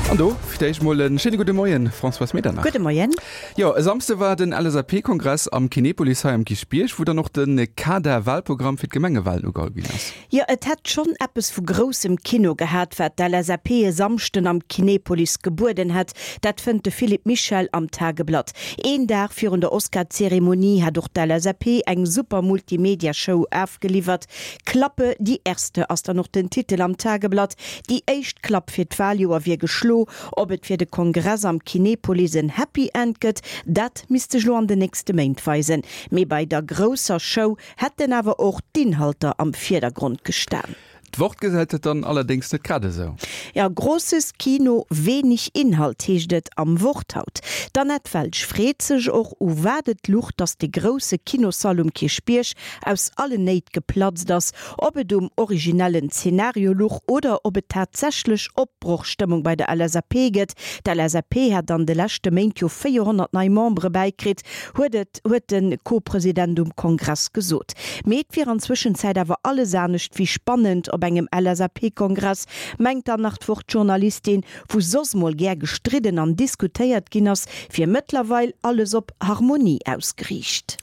An do fir d'éischt mol e schéine gudde Moien, Françoise Medernach. Gudde Moien. Jo, e Samsde war den LSAP-Kongress am Kinepolis hei am Kierchbierg, wou dann och de Kader-Wahlprogramm fir d'Gemengewahlen ugeholl ginn ass. Jo, et hätt schonn eppes vu groussem Kino gehat, wat d'LSAP e Samschden am Kinepolis gebueden hätt. Dat fënnt de Philippe Michel am Tageblatt. Een Dag virun der Oscar-Zeremonie hat och d'LSAP eng super Multimedia-Show afgeliwwert. Klappe die Erste ass dann och den Titel am Tageblatt. Déi éischt Klapp fir d'Waljoer wier geschlo. Ob et fir de Kongress am Kinepolis en Happy End gëtt, dat misst sech lo an den nächste Méint weisen. Mee bei der grousser Show hätten awer och d'Inhalter am Virdergrond gestan. D'Wort gesäit et dann allerdéngs net grad esou. Ja, grosses Kino, wenig Inhalt heescht et am Wort haut. D'Annette Welsch freet sech och, u wat et luch, datt de grousse Kinossall um Kierchbierg aus allen Néit geplatzt ass, ob et um originellen Zenario luch oder ob et tatsächlech Opbrochstëmmung bei der LSAP gëtt. D'LSAP hätt an de leschte Méint jo 400 nei Membere bäikritt, huet et huet de Co-President um Kongress gesot. Mee et wier an Zwëschenzäit awer alles anescht wéi spannend op engem LSAP-Kongress, mengt dann nach d'Wort-Journalistin, wou soss mol gär gestridden an diskutéiert ginn ass, wier mëttlerweil alles op Harmonie ausgeriicht.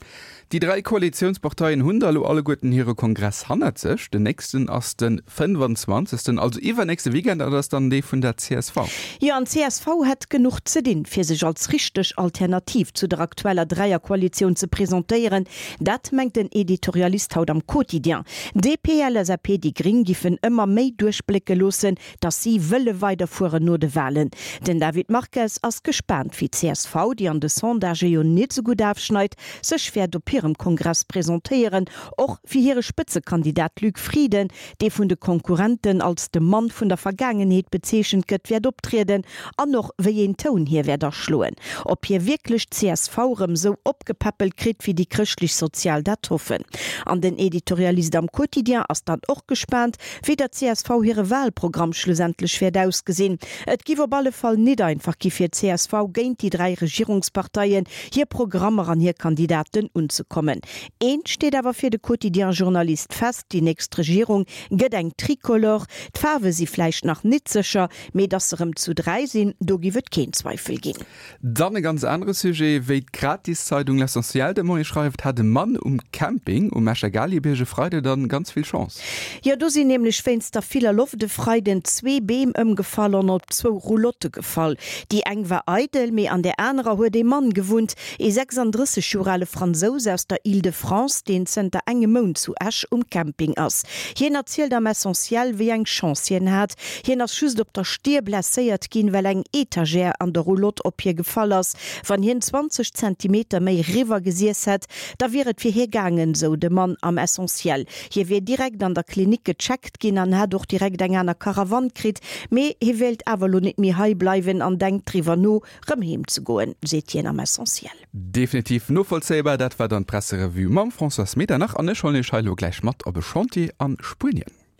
Déi 3 Koalitiounsparteien hunn da elo alleguerten hire Kongress hannert sech. Den nächsten ass de 25., also iwwernächste Weekend, an dat ass dann dee vun der csv. Jo, an d'CSV hätt genuch ze dinn, fir sech als richteg Alternativ zu der aktueller Dräierkoalitioun ze presentéieren. Dat mengt den Editorialist haut am Quotidien. DP, LSAP, déi Gring giffen ëmmer méi duerchblécke loossen, datt si wëlle weiderfueren no de Walen. Den David Marques ass gespaant, wéi d'CSV, déi an de Sondagë jo nit esou gutt afschneit, sech wäert op hirem Kongress presentéieren, och fir hire Spëtzekandidat Luc Frieden, dee vun de Konkurrenten als de Mann vun der Vergaangenheet bezeechent gëtt, wäert optrieden an och wéi een Toun hie wäert aschloen. Ob hie wierklech d'CSV erëm esou opgepäppelt kritt, wéi déi Chrëschtlech-Sozial dat hoffen. An den Editorialist am Quotidien ass dann och gespaant, wéi der csv hire Wahlprogramm schlussendlech wäert ausgesinn. Et giff op alle Fall nit einfach gi fir csv géint déi 3 Regierungsparteien, hir Programmer an hir Kandidaten unzekommen. Eent steet awer fir de Quotidien-Journalist fest, déi nächst Regierung gëtt eng Tricolore. D'Faarwe si vläicht nach nit sécher, mee datt se rëm zu 3 sinn, do giff et keen Zweifel ginn. Dann e ganz anere Sujet, Wéi d'Gratiszeidung L'Essentiel de Moie schreift, hat e Mann um Camping um Escher Galiebierg e Freide dann ganz vill Chance. Jo, do sinn nämlech wéinst der viller Loft e Freiden zwee Beem ëmgefall an op zwou Roulotte gefall. Déi eng war eidel, mee an där anerer huet ee Mann gewunnt, ee 36 Joer ale Fransous aus der Île-de-France, deen zënter engem Mount zu Esch um Camping ass. Hien erzielt am Essentiel, wéi eng Chance hien hat. Hien ass just op der Stier blesséiert ginn, well eng Etagère an der Roulotte op hie gefall ass. Wann hien 20 Zentimeter méi riwwer gesiess hätt, da wier et fir hie gaangen, sou de Mann am Essentiel. Hie wier direkt an der Klinik gecheckt ginn an hätt och direkt eng aner Karawann kritt, mee hie wéilt awer elo net méi hei bleiwen an denkt driwwer no, rëm heem ze goen, seet hien am Essentiel. Definitiv novollzéibar. Dat war dann d'Presserevue mam Françoise Medernach an ech huelen iech hei elo gläich mat op e Chantier a Spuenien.